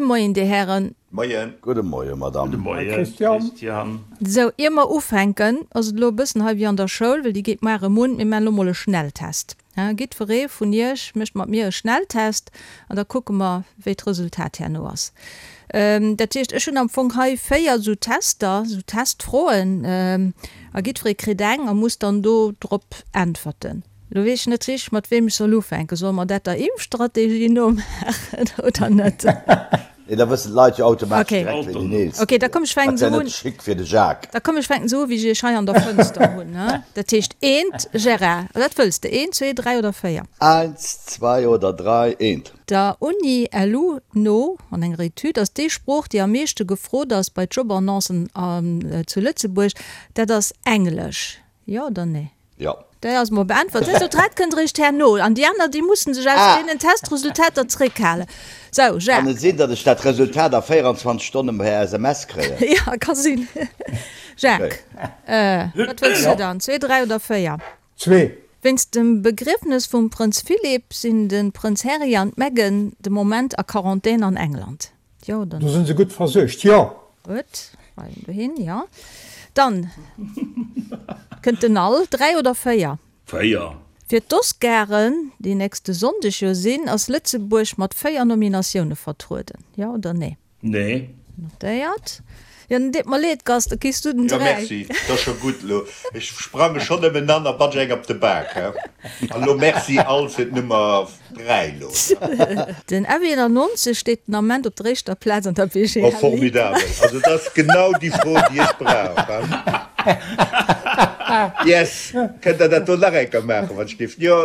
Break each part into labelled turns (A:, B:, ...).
A: Moien, Dir Hären.
B: Moien.
C: Gudde Moie, Madame.
D: Gudde Moie,
E: Christian.
D: Christian.
A: Sou, ier mer ufänken, ass et elo e bëssen hei wéi an der Schoul, well déi geet muar erëm un, mir maachen elo mol e Schnelltest. Jiddweree vun iech mécht mat mir e Schnelltest an da kucke mer, wéi d'Resultat herno ass. Dat heescht, ech hunn am Fong hei 4 esou Tester, esou Testfroen, a jiddweree kritt eng a muss dann do drop äntwerten. Lo weess ech net richteg, mat weem ech soll ufänken. Solle mer dat der Impfstrategie no maachen oder net?
C: Nee, da wëssen d'Leit jo automatesch direkt, ween deen eelsten
A: Okay, da komm ech fänken
C: Dat
A: esou
C: wär
A: un.
C: net chic fir de Jacques.
A: Da komm ech fänken esou u wéi ech iech hei an der Fënster hunn. Dat heescht eent, Gérard, wat wëlls de, eent, zwee, dräi oder véier?
C: Eins, zwei oder drei, eent.
A: Der Uni LU no, an enger Etüd, ass déi Sprooch, déi am meeschte gefrot ass bei Jobannoncen zu Lëtzebuerg, dat ass Englesch. Jo oder nee?
C: Jo.
A: Déi ass mol beäntwert. D'Resultat kënnt eréischt herno. An déi aner, déi mussen sech aus deenen Testresultater zréckhalen. Sou,
C: Kann
A: Jacques.
C: et sinn, datt ech dat Resultat a 24 Stonne per SMS kréien?
A: Jo, ka sinn. Jacques, wat wëlls du dann? Zwee, dräi oder véier?
E: Zwee.
A: Wéinst dem Begriefnes vum Prënz Philip sinn de Prënz Harry an d'Meghan de Moment a Quarantän an England. Jo oder
E: Do sinn se gutt versuergt, jo.
A: Gutt, weisen dohin, jo. Dann kënnt den Al. 3 oder 4?
D: 4.
A: Fir d'Oscaren, déi nächste Sonndeg jo sinn, ass Lëtzebuerg mat 4 Nominatioune vertrueden. Jo oder nee?
D: Nee.
A: Notéiert. Jo, den deet mer leed, Gast, da kriss du den
B: 3. Jo,
A: merci,
B: 't ass scho gutt elo. Ech sprange schonn ëm en an a batsch eng op de Bak, he. An elo merci all fir d'Nummer 3 elo.
A: Den F91 steet den Ament op der éischter Plaz an der BGL
B: Oh,
A: Ligue.
B: formidabel. Also dat ass genau déi Fro, déi ech brauch, he. Yes! Kënnt Der dat do nach eng Kéier maachen, wann ech géif? Jo,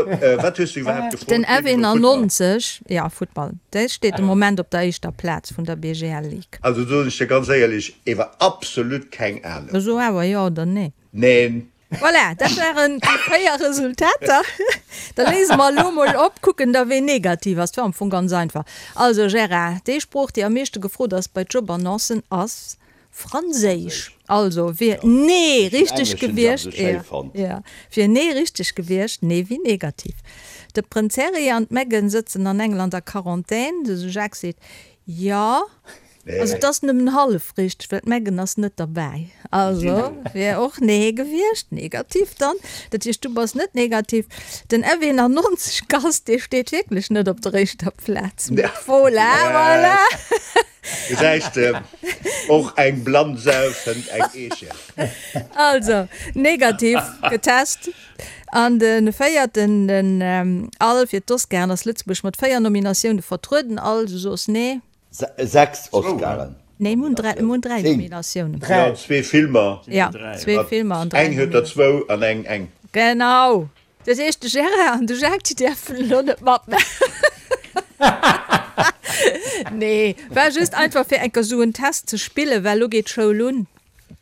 B: wat hues du iwwerhaapt gefrot?
A: Den F91, jo, Futtball, dee steet de Moment op der éischter Plaz vun der BGL Ligue.
B: Also soen ech dir ganz éierlech, ewer absolut keng Ahnung.
A: So awer jo oder nee?
B: Neen.
A: Voilà, dat waren déi 4 Resultater. Da léise mer elo mol op, kucken da ween negativ ass. Dat war am Fong ganz einfach. Also Gérard, déi Sprooch déi am meeschte gefrot ass bei Jobannoncen ass Franséisch. Also wier nee richteg gewiescht, jo, wier nee richteg gewiescht, nee wéi negativ. De Prënz Harry an d'Meghan sëtzen an England a Quarantän. De Jacques seet jo. Also et ass nëmmen hallef richteg, well d'Meghan ass net derbäi. Also wier och nee gewiescht, negativ dann. Dat heescht, du bass net negativ. Den F91 Gast, dee steet wierklech net op der éischter Plaz. Voilà, voilà.
B: Gesäis de, och eng blann Sau fënnt eng Eecher.
A: Also, negativ getest. An de véierten, den Al fir d'Oscaren, ass Lëtzebuerg mat 4 Nominatioune vertrueden. Al, du soos nee.
C: 6 Oscaren.
A: Nee, mir hunn 3, mir hunn 3 Nominatiounen.
B: Jo, zwee Filmer.
A: Ja, zwee Filmer an 3
B: Eng huet der zwou an eng eng.
A: Genau. Dat heescht, de Gérard an de Jacques, déi däerfen elo net matmaachen. Nee, war just einfach fir eng Kéier esou en Test ze spillen, well elo geet d'Schoul un.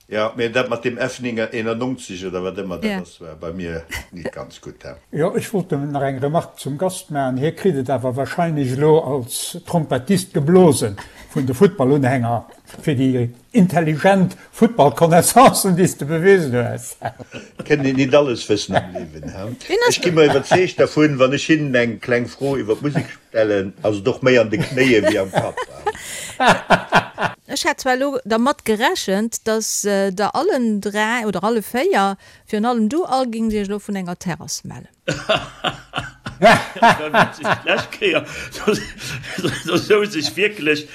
B: Jo, mee dat mat deem F91 oder wat ëmmer dat ass, war bei mir nit ganz gutt, he.
E: Jo, ech wollt nëmmen nach eng Remarque zum Gast maachen. Hie kritt et awer wahrscheinlech elo als Trompettist geblosen vun de Futtballunhänger fir déi intelligent Futtballconnaissancen, déi s de bewisen hues.
B: Kënnt een nit alles wëssen am Liewen, he. Ech gi mer iwwerzeegt dervun, wann ech hinnen eng kleng Fro iwwer d'Musek stellen, ass et och méi an de Knéie wéi am Kapp.
A: Ech hat zwar elo dermat gerechent, dass der allen 3 oder alle 4, virun allem du Al, géings iech elo vun enger Terrass mellen.
D: Dat war witzeg, d'lescht Kéier, do souz ech wierklech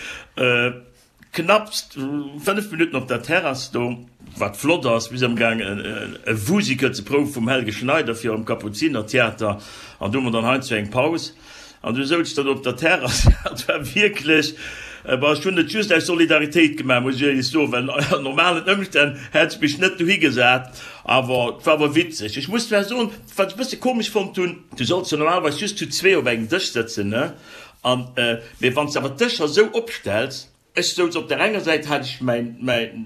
D: knapps 5 Minutten op der Terrass do, wat flott ass. Mir si amgaang e Wusical ze prouwe vum Helge Schneider fir am Kapuzinertheater an do hu mer dann heiansdo eng Paus. An du souz dann op der Terrass, dat war wierklech, bon, ech hunn et just aus Solidaritéit gemaach, muss ech éierlech soen, well an normalen Ëmstänn hätt ech mech net dohi gesat, awer et war awer witzeg. Ech muss zwar soen, wat ech e bësse komesch fonnt hunn, du solls jo normalerweis just zu zwee op engem Dësch sëtzen, ne, an, mee wann s de awer d'Dëscher esou opstells, Ech souz op der enger Säit hat ech mäin, mäin,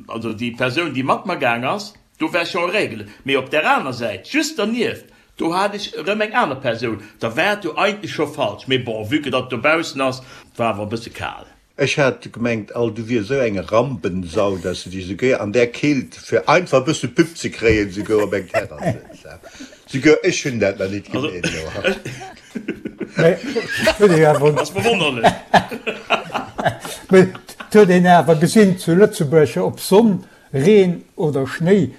D: also déi Persoun, déi mat mer gaang ass, do war scho en règle, mee op der aner Säit, just dernieft, do hat ech erëm eng aner Persoun, da war et jo eigentlech scho falsch, mee bon, vue que datt dobaussen ass, war awer e bësse kal.
B: Ech hat gemengt, all du wiers esou eng Rampensau, dass de dech esouguer an där Keelt, fir einfach e bësse Pub ze kréien, esouguer op eng Terrass sëtz. Souguer ech hunn dat nach nit gemeet elo.
D: Ass verwonnerlech.
E: Mee et huet een awer gesinn zu Lëtzebuerg, ob Sonn, Reen oder Schnéi,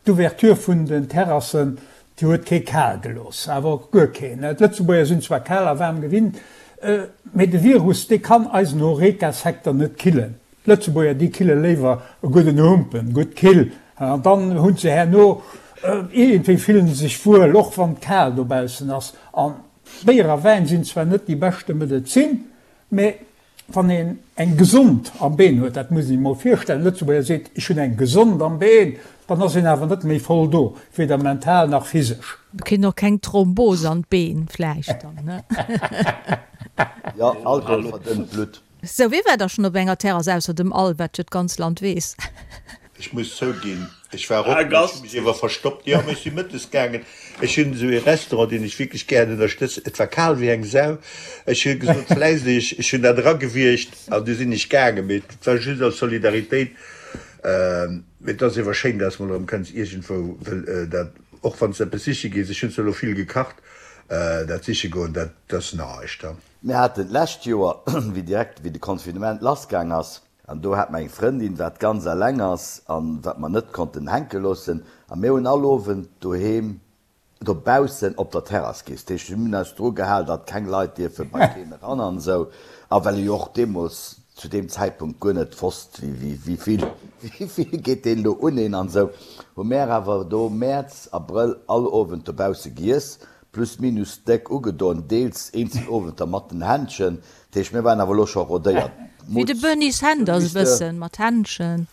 E: d'Ouverture vun den Terrassen, déi huet kee kal gelooss, awer och guer keen. D'Lëtzebuerger sinn zwar kal a waarm gewinnt, mee de Virus, dee kann eisen Horeca-Secteur net killen. D'Lëtzebuerger, déi kille léiwer e gudden Humpen, gutt kill, an dann hunn se herno, iergendwéi fillen se sech wuel, och wann et kal dobaussen ass. An Béier a Wäin sinn zwar net déi beschte Medezin, mä wann een eng gesond am Been huet, dat muss een sech mol virstellen, e Lëtzebuerger seet, ech hunn eng gesond am Been, dann ass een awer net méi voll do, weder mental nach physesch.
A: Kritt och keng Thrombos an d'Been vläicht dann, ne?
C: Jo, Alkohol verdënnt d'Blutt.
A: Sou, wie war da schonn op enger Terrass ausser dem Al, wat jo d'ganz Land weess?
B: Ech muss zouginn, ech war och, mee ech hu mech iewer verstoppt. Jo, mee ech si mëttes gaangen. Ech hunn esou ee Restaurant, deen ech wierklech gären ënnerstëtzen. Et war kal wéi eng Sau. Ech hu gesot, vläicht, ech hunn dat eragewiergt an du sinn ech gaangen. Mee et war just aus Solidaritéit. Mee et ass iewer schéin, dass mol erëm kënns iergendwou, wëll dat, och wann s de eppes siche gees, ech hunn zwar elo vill gekacht, dat siche goen, dat ass näischt.
C: Mir haten d'lescht Joer, wéi direkt wéi de Confinement lassgaang ass, an do hat mer eng Frëndin, wat ganz eleng ass an wat mer net konnten hänke loossen, a mir hunn all Owend doheem dobaussen op der Terrass giess. Dat heescht, mir hunn eis dru gehal, datt keng Leit dierfe bei keen eran an esou, a well ee jo och deemools zu deem Zäitpunkt guer net wosst, wéi vill wéi vill geet deen elo un een an esou, hu mär awer do Mäerz, Abrëll all Owend dobausse giess, Plus minus déck ugedoen, deels eenzel Owenter mat den Händschen. Dat heescht, mir waren awer elo scho rodéiert.
A: Wéi de Bernie Sanders e bëssen, mat Händschen.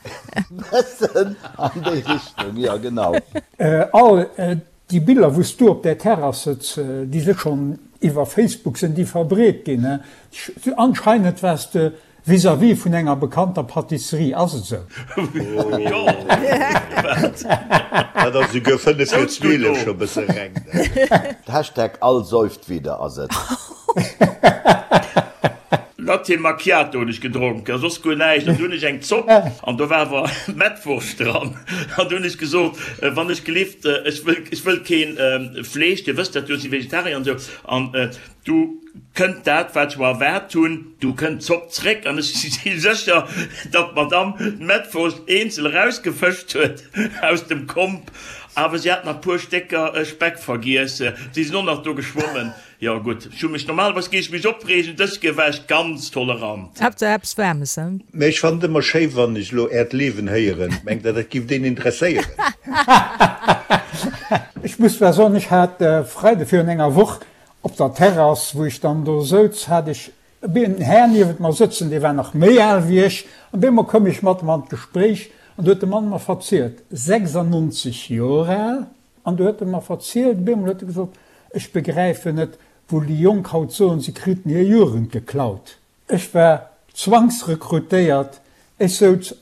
C: Bëssen an déi Richtung, jo genau.
E: All déi Biller wou s du op där Terrass sëtz, déi si schonn iwwer Facebook sinn déi verbreet ginn. Anscheinend waars de Vis-à-vis vun enger bekannter Pâtisserie, ass et esou?
D: Jo,
B: wat? Dat ass esouguer 5 vir 12 scho bësse reng.
C: Hashtag all säuft wieder ass et.
D: Latte Macchiato hunn ech gedronk a soss guer näischt. An du hunn ech eng Zopp an do war awer Mettwurscht dran. An du hunn ech gesot, wann ech gelift, ech wëll, ech wëll keen Fleesch, Dir wësst dat jo, ech si Vegetarier an esou. An du kënnt dat, wat ech mer erwaart hunn, du kënnt d'Zopp zréck an ech si sécher, datt d'Madamm d'Mettwurscht eenzel erausgefëscht huet aus dem Komp, awer si hat nach puer Stécker Speck vergiess, si sinn och nach do geschwommen. Jo gutt, ech hu mech, normalerweis géif ech mech opreegen, dës Kéier war ech ganz tolerant.
A: Haaptsaach eppes Waarmes, he?
B: Mä ech fannen et ëmmer schéi wann ech elo äert Liewen héieren. Mengt der dat giff deen interesséieren?
E: Ech muss zwar soen, ech hat Freide virun enger Woch Op der Terrass, wou ech dann do souz, hat ech en Här niewent mer sëtzen, dee war nach méi al wéi ech. An deemol koum ech mat em an d'Gespréich an du huet de Mann mer verzielt, 96 Joer al, an du huet e mer verzielt, op eemol huet e gesot, ech begräifen net, wou déi Jonk haut soen, se kriten hir Jugend geklaut. Ech war zwangsrekrutéiert, ech souz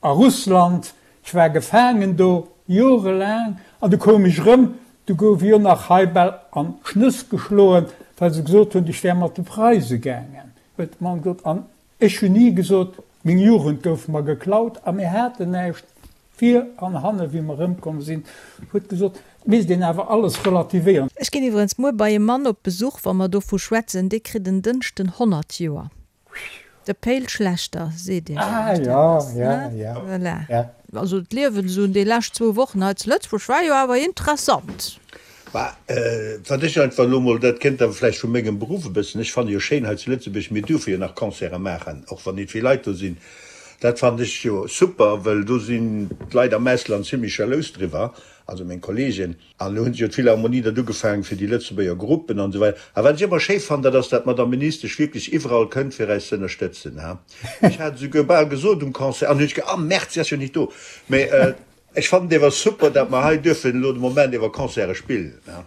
E: A Russland, ech war gefaangen do, jorelaang, an du koum ech erëm, du gouf ech och nach hei bal an d'Schnëss geschloen, well se gesot hunn, ech wär mat de Preise gaangen, huet de Mann gesot. An ech hunn ni gesot, meng Jugend gouf mer geklaut a mir haten näischt vir an hanne wéi mer erëmkomm sinn, huet gesot, et misst een awer alles relativéieren.
A: Ech ginn iwwerens muer bei e Mann op Besuch, wa mer dovu schwätzen, dee kritt en Dënschden 100 Joer. De Péil Schlechter seet Iech vläicht eppes, ne? Voilà. Also d'Liewen esou déi lescht zwou Wochen hei zu Lëtzebuerg war jo awer interessant.
B: Bah, wat ech einfach elo mol, dat kënnt awer vläicht vu mengem Beruff e bëssen, ech fanne jo schéin hei zu Lëtzebuerg, mir duerfe jo nach Concerte maachen, och wann nit vill Leit do sinn. Dat fannen ech jo super, wëll do sinn d'Leit am Ausland zimlech jalous driwwer, also meng Kollegen. An elo hunn se jo d'Philharmonie dat ugefaangen fir déi Lëtzebuerger Gruppen an esou weider. A wat ech ëmmer schéi fannen, dat ass, dat d'Madame Ministesch wierklech iwwerall kënnt, fir äis ze ënnerstëtzen. Ha, ech hat esouguer bal gesot um Concert, an hunn ech ge, ah Merde, si ass jo nit do. Mä ech fannen et ewer super, dat mer hei duerfen elo de Moment ewer Concerte spillen. Ha.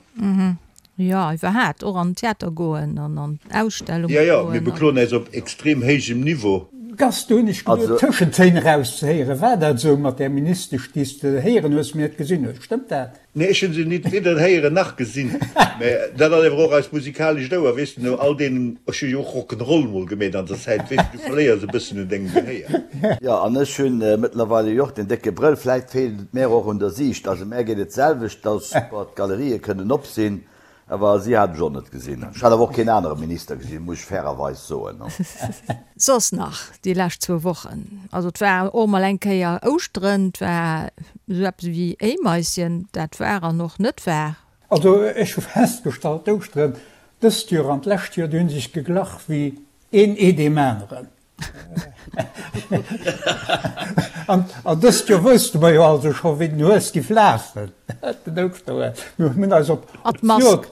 A: Jo, iwwerhaat, och an den Theater goen an an Ausstellunge
B: Jo, jo,
A: goen
B: mir
A: an.
B: bekloen äis op extrem héijem Niveau.
E: Gast, do hunn ech geduet, Tëschentéin erauszehéieren. War dat esou mat där Ministesch, déi s de héieren hues, mee net gesinn hues? Stëmmt dat?
B: Nee, ech hunn se nit weder héieren nach gesinn. Mä dat ass ewer och eist musikalescht Ouer, weess de, no all deenen, ech hu jo och Rock'n'Roll mol gemeet an der Zäit, weess de, du verléiers e bëssen un dengem Gehéier.
C: Jo, an ech hunn mëttlerweile jo och den décke Brëll, vläit feelt et mär och un der Siicht. Also mär geet et d'selwecht, et ass super, d'Galerië kënnen op sinn. Awer si hat ech och net gesinn. Ech hat awer och keen anere Minister gesinn, muss ech fairerweis soen.
A: Soss nach déi lescht zwou Wochen, also et war och mol eng Kéier Ouschteren, et war esou eppes ewéi Éimaischen, dat war an och net war.
E: Also ech hu festgestallt, d'Ouschteren dëst Joer an d'lescht Joer, déi hu sech geglach wéi een Ee deem aneren. An dëst Joer wousste mer jo also scho wéi den Hues giff lafen, den Ouschterhues. Mir hunn eis op d'Joer,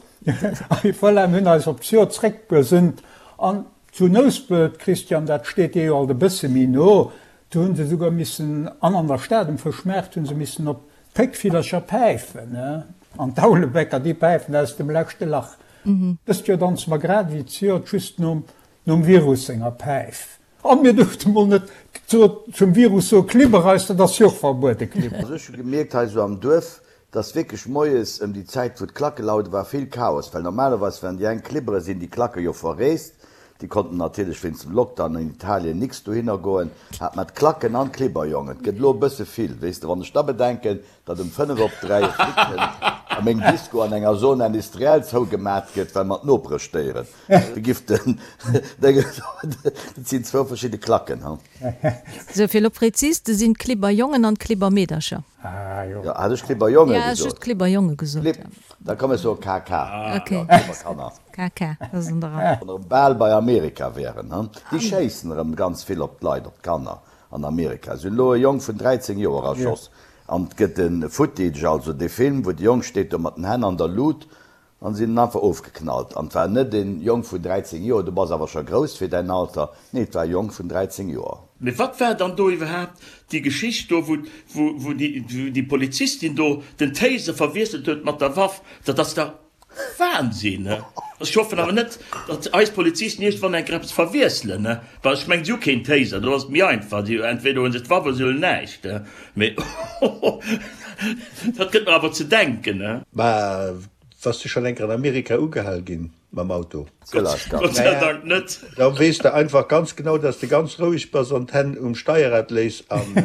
E: voilà, mir hunn eis op d'Joer zréckbesënnt. An zu Nouspelt, Christian, dat steet dir jo alt e bësse méi no, do hu se souguer missen, an an der Stad um Fëschmaart hu se missen op d'Péckvillercher päifen, an d'Aulebäcker, déi päifen aus dem leschte Lach. Dëst Joer danze mer grad ewéi d'Joert just nom Nom Virus senger Päif. An mir duerfte mol net zum Virus soe Klibber eis, dat ass jo och verbuede Klibber.
C: Also ech hu gemierkt hei sou am Duerf, dass wierklech moies ëm déi Zäit wou d'Klacke laude war vill Chaos, well normalerweis wann déi eng klibbere sinn déi Klacke jo verreest, déi konnten natierlech wéinst dem Lockdown an Italien nix dohinner goen, hat mer d'Klacken an d'Klibberjongen. Et gëtt elo e bësse vill, weess de, wann ech da bedenken, datt um 5 op 3 e Flic kënnt a meng Disco an enger Zone industrielle zougemat gëtt, well mer d'Nopere stéieren. De giff den Déngen, dat sinn zwou verschidde Klacken, ha.
A: Sou, fir elo prezis ze sinn, d'Klibberjongen an d'Klibbermeedercher.
C: Ah jo. Jo, hat ech Klibberjonge
A: gesot? Ja, just Klibberjonge gesot,
C: ja. Da komm ech soe KK.
A: Ok. Jo, Klibberkanner. KK, dat ass an der
C: Rei. Wann erëm bal bei Amerika wären, ha. Déi schéissen erëm ganz vill op d'Leit, op d'Kanner an Amerika. Se hunn elo e Jong vun 13 Joer erschoss. An et gëtt e Footage, also dee Film, wou de Jong steet do mat den Hänn an der Lut An si hunn en einfach ofgeknallt. An et war net en Jong vun 13 Joer, du bass awer scho grouss fir däin Alter, nee, et war e Jong vun 13 Joer.
D: Mee wat war dann do iwwerhaapt déi Geschicht do, wou, wou déi, déi Polizistin do den Taser verwiesselt huet mat der Waff? Dat ass dach Wahnsinn! Ech hoffen awer net, datt eis Polizisten iergendwann eng Kéier eppes verwiesselen, well ech mengen, si hu keen Taser, do ass et méi einfach, si, entweder hu se d'Waff oder si hunn näischt. Mee dat gëtt mer awer ze denken.
B: Mä Bass du schon enker an Amerika ugehal gin mam Auto?
D: Gott sei Dank net.
B: Da weess de einfach ganz genau, dass de ganz roueg bass an d'Hänn um Steierrad léiss an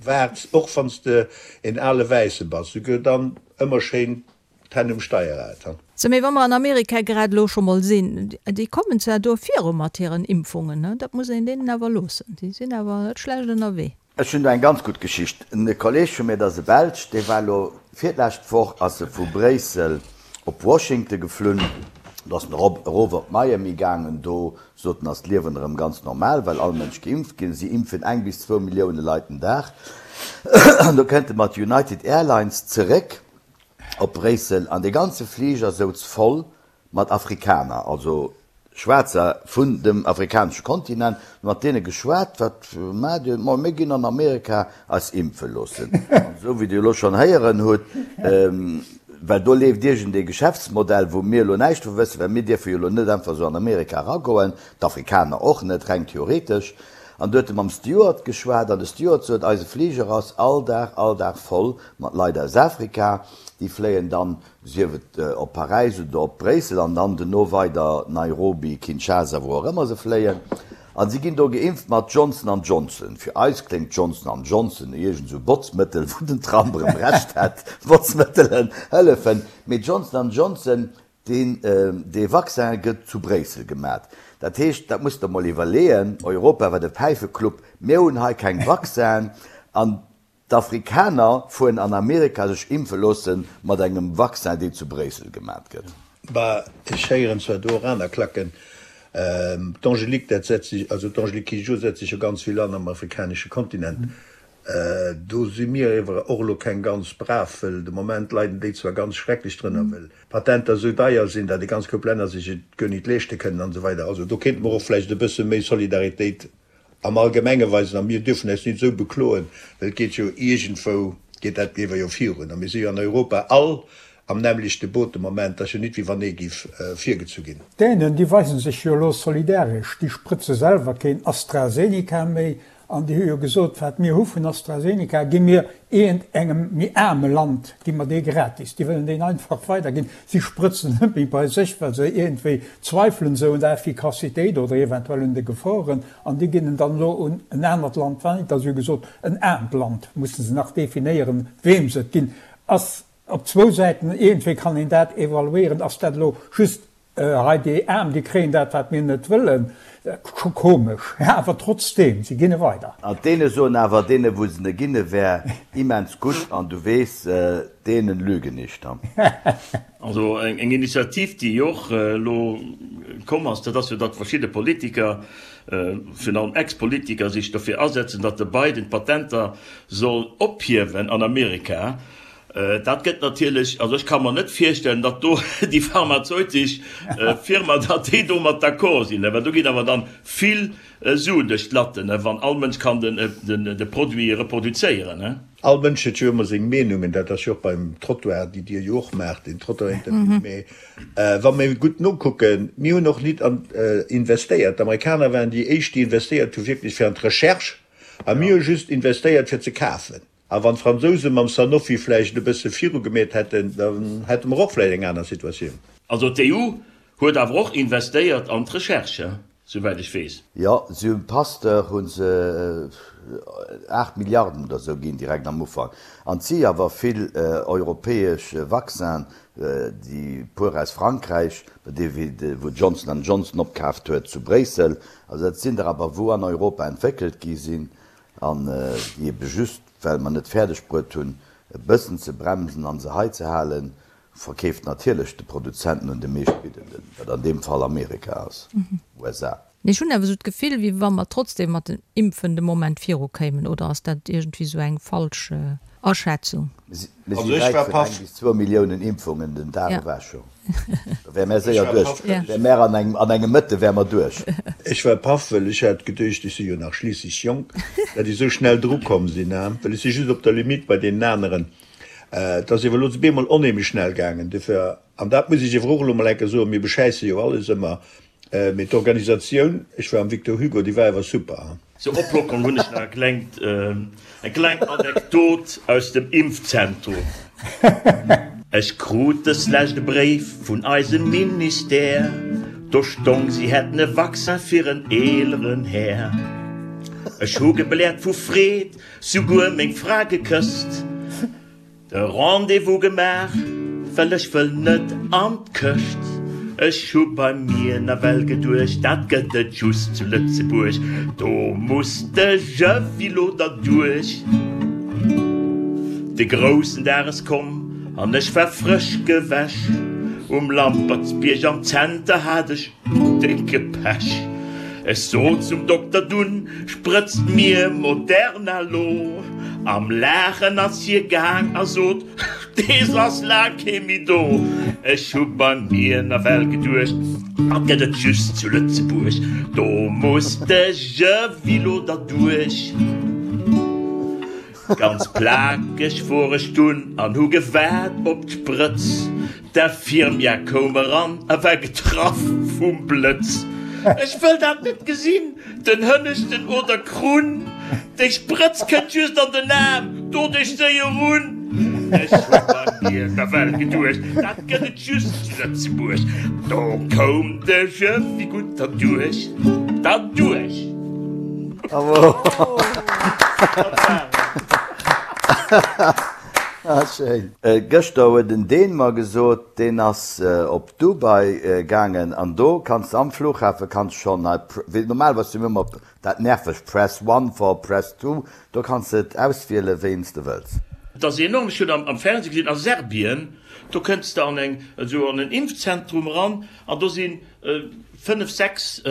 B: waarts, och wanns de een ale Wäisse bass, souguer dann ëmmer schéin d'Hänn um Steierrad.
A: Sou, mee wa mer an Amerika grad elo scho mol sinn, déi kommen zwar do viru mat hiren Impfungen, ne, dat muss een deenen awer loossen, déi sinn awer net schlecht ënnerwee.
C: Ech hunn do eng ganz gutt Geschicht. En Kolleg vu mir, dat ass e Belsch, dee war elo virlescht Woch ass e vu Bréissel op Washington geflunn. Do ass en erop, erof op Miami gaangen. Do sot en, ass d'Liewen erëm ganz normal, well all Mënsch geimpft ginn. Si impfen eng bis zwou Millioune Leit den Dag. An do kënnt e mat United Airlines zeréck op Bréissel an dee ganze Fliger souz voll mat Afrikaner, also Schwaarzer vun dem afrikanesche Kontinent, mat deene geschwat, wat maacht Dir? Ma mir ginn an Amerika eis impfe loossen. An esou wéi Dir elo schonn héieren hutt, well do leeft iergendee Geschäftsmodell, wou mir elo näischt vu wëssen, well mir dierfe jo elo net einfach esou an Amerika eragoen, d'Afrikaner och net, reng theoretesch. An do huet e mam Steward geschwat an de Steward sot, eise Fliger ass all Dag, all Dag voll mat Leit aus Afrika, déi fléien dann sief et op Paräis oder op Bréissel an dann duerno weider Nairobi, Kinshasa, wou och ëmmer se fléien. A si ginn do geimpft mat Johnson an Johnson. Fir eis kléngt Johnson an Johnson no iergend esou Botzmëttel, wou den Trump erëm Recht hätt, Botzmëttelen hëllefen. Mee Johnson an Johnson, deen, dee Vaccin gëtt zu Bréissel gemat. Dat heescht, dat musst Der mol iwwerleeën, Europa war de Päifeclub, mir hunn hei keng Vaccinen an D'Afrikaner fueren an Amerika sech impfe loosse mat engem Vaccin, deen zu Bréissel gemat gëtt.
B: Bah, ech héieren zwar do och aner Klacken. D'Angélique, dat setzt sech, also d'Angélique Kidjo setzt sech jo ganz vill an am afrikanesche Kontinent. Do si mir ewer och elo keng ganz brav, wëll de Moment leiden déi zwar ganz schrecklech drënner, wëll d'Patenter esou deier sinn, datt e ganz Koup Länner sech et guer nit leeschte kënnen an esou weider. Also do kéinte mer och vläicht e bësse méi Solidaritéit am Allgemenge weisen a mir dürfen eis nit esou bekloen, well et geet jo iergendwou, geet dat ewer jo virun a mir si jo an Europa all am nämmlechte Boot de Moment, et ass jo nit wéi wann ee giff virgezu ginn.
E: D'Dänen, déi weisen sech jo elo solidaresch, déi sprëtze selwer keen AstraZeneca méi an déi hu jo gesot, wat mir hu vun AstraZeneca, gi mir iergend engem méi aarme Land, gi mer dee gratis. Déi wëllen deen einfach weiderginn. Si sprëtzen net méi bei sech, well se iergendwéi zweifelen esou un der Effikassitéit oder eventuell un de Geforen an déi ginn en dann elo un en anert Land weider. Si hu gesot, en aarmt Land, musse se nach definéieren, weem se et ginn. Ass. Op zwou Säiten, iergendwéi kann een dat evaluéieren, ass dat elo just hei déi Aarm, déi kréien dat, wat mir net wëllen, scho komesch, awer trotzdeem, si ginne weider.
C: An deene soen awer, deene wou se ne ginne wär immens gutt, an du weess, denen lügen nicht.
D: Also eng Initiativ, déi och elo komm ass, dat ass jo, datt verschidde Politiker, virun allem Ex-Politiker, sech dofir asetzen, datt de Biden d'Patenter soll ophiewen an Amerika. Dat gëtt natierlech, also ech ka mer net virstellen, datt do déi pharmazeutesch Firma, datt déi domat d'accord sinn, well do ginn awer dann vill Suen duerch d'Latten, wann all Mënsch kann de Produit reproduzéieren.
B: All Mënsch huet jo ëmmer seng Meenungen, dat ass jo och beim Trottoir, déi Dir jo och maacht, den Trottoir-Interview. Mee wa mir gutt nokucken, mir hunn och nit an investéiert. D'Amerikaner waren déi éischt, déi investéiert hu wierklech fir an d'Recherche, a mir hu just investéiert fir ze kafen. A wann d'Fransouse mam Sanofi vläicht e bësse viru gemeet hätten, da hätte mer och vläicht eng aner Situatioun.
D: Also d'EU huet awer och investéiert an d'Recherche, souwäit ech weess.
C: Jo, si hunn Pasteur hu se 8 Milliarden oder esou ginn direkt am Ufank. An et si awer vill europäesch Vaccinen, déi puer aus Frankräich, dee wou Johnson and Johnson opkaaft huet zu Bréissel. Also dat sinn der awer wou an Europa entwéckelt gi sinn. An déi ebe just, well mer net fäerdeg bruet hunn, e bëssen ze bremsen an se hei ze halen, verkeeft natierlech de Produzenten un de meeschtbiddenden, wat an deem Fall Amerika ass, USA.
A: Mee ech hunn awer esou d'Gefill, wéi wa mer trotzdem mat den Impfen de Moment virukéimen, oder ass dat iergendwéi esou eng falsch Aschätzung?
C: Mir si wäit vun eng bis zwou Milliounen Impfungen den Dag ewech scho. Da wäre mär séier duerch. Wäre mär an engem, an engem Mëtte wäre mer duerch.
B: Ech war paff, well ech hat geduecht, ech si jo nach schliisslech jonk, dat ech esou schnell drukomm sinn, well ech si just op der Limite bei deenen aneren. Et ass iewer elo op eemol onheemlech schnell gaangen. Dofir, an dat muss ech iewer och elo mol eng Kéier soen, mir beschäisse jo alles ëmmer, Mee d'Organisatioun, ech war am Victor Hugo, déi war awer super.
D: Zur Oplockerung hunn ech nach e klengt, eng kleng Anekdot aus dem Impfzentrum. Ech krut dës lescht e Bréif vun eisem Ministère, do stong si hätten e Vaccin fir en eeleren Här. Ech hu gebläert vu Freed, souguer meng Fra gekësst. De Rendez-vous gemaach, well ech wëll net an d'Këscht. Ech hu bei mir nawell geduecht, dat gëtt et just zu Lëtzebuerg, do muss de Jëwilo derduerch. De groussen Dag ass komm an ech war frësch gewäsch, um Lampertsbierg am Zenter hat ech décke Pech. Ech sot zum Dokter dunn, Sprëtzt mir Moderna lo! Am Laachen ass hie gaang a sot, Dees ass laang kee méi do. Ech hu bei mir nawell geduecht, Dat gëtt et just zu Lëtzebuerg, do muss de Jëwilo derduerch. Ganz plakeg wor ech dunn an hu gewaart op d'Sprëtz. D'Infirmière koum eran a war getraff vum Blëtz. Ech wëll dat net gesinn, den hënneschten oder Krunn. Déi Sprëtz kënnt just an den Aarm, do dech séier un. Ech hu bei mir nawell geduecht, dat gëtt et just zu Lëtzebuerg. Do koum de Jëffi gutt derduerch, derduerch.
C: Ah schéin. Gëschter huet en Dän mer gesot, deen ass op Dubai gaangen an do kanns de am Flughafe kanns schonn hei, wéi normalerweis hu mir ëmmer dat nervegt Press one for press two, do kanns de et auswielen wéi s de wëlls.
D: Et ass enorm, ech hunn am Fernseh gesinn, a Serbien, do kënns de an eng, esou an en Impfzentrum eran an do sinn 5, 6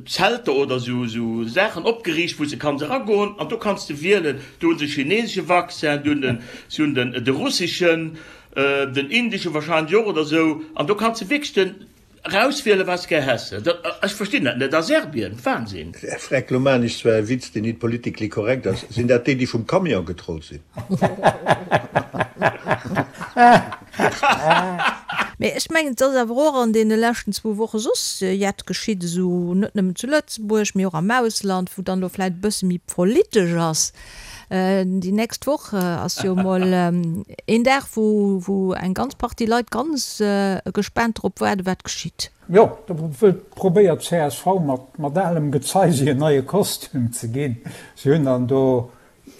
D: Zelter oder esou esou Saachen opgeriicht, wou s de kanns eragoen an do kanns de wielen. Do hu se chinesesche Vaccin, do hunn den, si hunn den de russeschen, den indesche wahrscheinlech och oder esou an do kanns de wierklech den erauswielen, wat s de gär häss. Dat, ech verstinn dat net a Serbien, Wahnsinn!
B: Freck, lo maan ech zwar e Witz, deen nit politically korrekt ass, Sinn dat déi, déi vum Camion getrollt sinn?
A: Mee ech mengen, et ass awer och an deene leschten zwou Woche soss jett geschitt, esou net nëmmen zu Lëtzebuerg, mee och am Ausland, wou dann elo vläicht e bësse méi politesch ass. Déi nächst Woch ass jo emol een Dag, wou wou eng ganz Partie Leit ganz gespaant drop waarden, wat geschitt.
E: Jo, do wëllt probéiert csv mat mat alem Gezei si en neie Kostüm ze ginn. Si hunn dann do,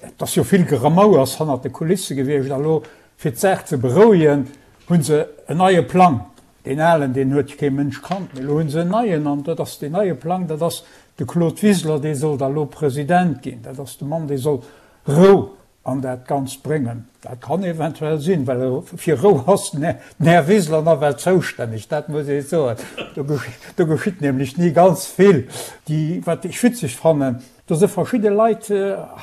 E: et ass jo vill Geramouers hannert de Kulisse gewiescht a lo. Fir d'Saach ze berouegen, hu se en neie Plang. Deen alen, deen huet kee Mënsch kannt, mee elo hu se en neien an dat ass deen neie Plang, dat ass de Claude Wiseler, dee soll da lo President ginn. Dat ass de Mann, dee soll Rou an dat Ganzt bréngen. Dat kann eventuell sinn, well fir Rou ass den Här Wiseler nawell zoustänneg, dat muss ee soen. Do geschitt nämlech ni ganz vill. Déi, wat ech witzeg fannen, do si verschidde Leit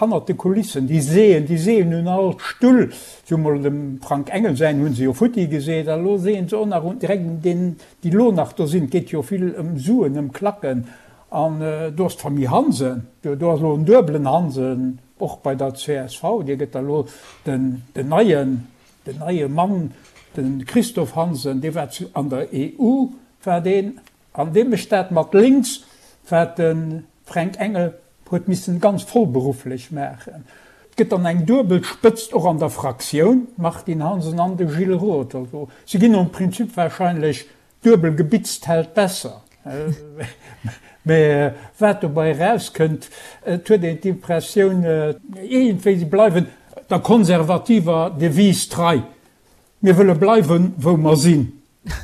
E: hannert de Kulissen, déi seeën, déi seeën un all Stull. Si hu mol dem Frank Engel säin hu se jo futti geseet a lo seeën se och nach un direkt un deenen, déi lo nach do sinn. Et geet jo vill ëm Suen, ëm Klacken. An do ass d'Famille Hansen, do ass elo en duebelen Hansen, och bei der csv, dee gëtt da lo den neien, den neie Mann, de Christophe Hansen, dee war zu, an der EU war deen, an dee mécht dat mat lénks, wat de Fränk Engel huet missen ganz vollberufflech maachen. Et gëtt dann eng duebel Spëtzt och an der Fraktioun, d'Martine Hansen an de Gilles Roth. Also si ginn nom Prinzip wahrscheinlech Duebel gebitzt hält besser. Mä wat dobei erauskënnt, et huet een d'Impressioun, iergendwéi si bleiwen der konservativer Devise trei, Mir wëlle bleiwen, wou mer sinn,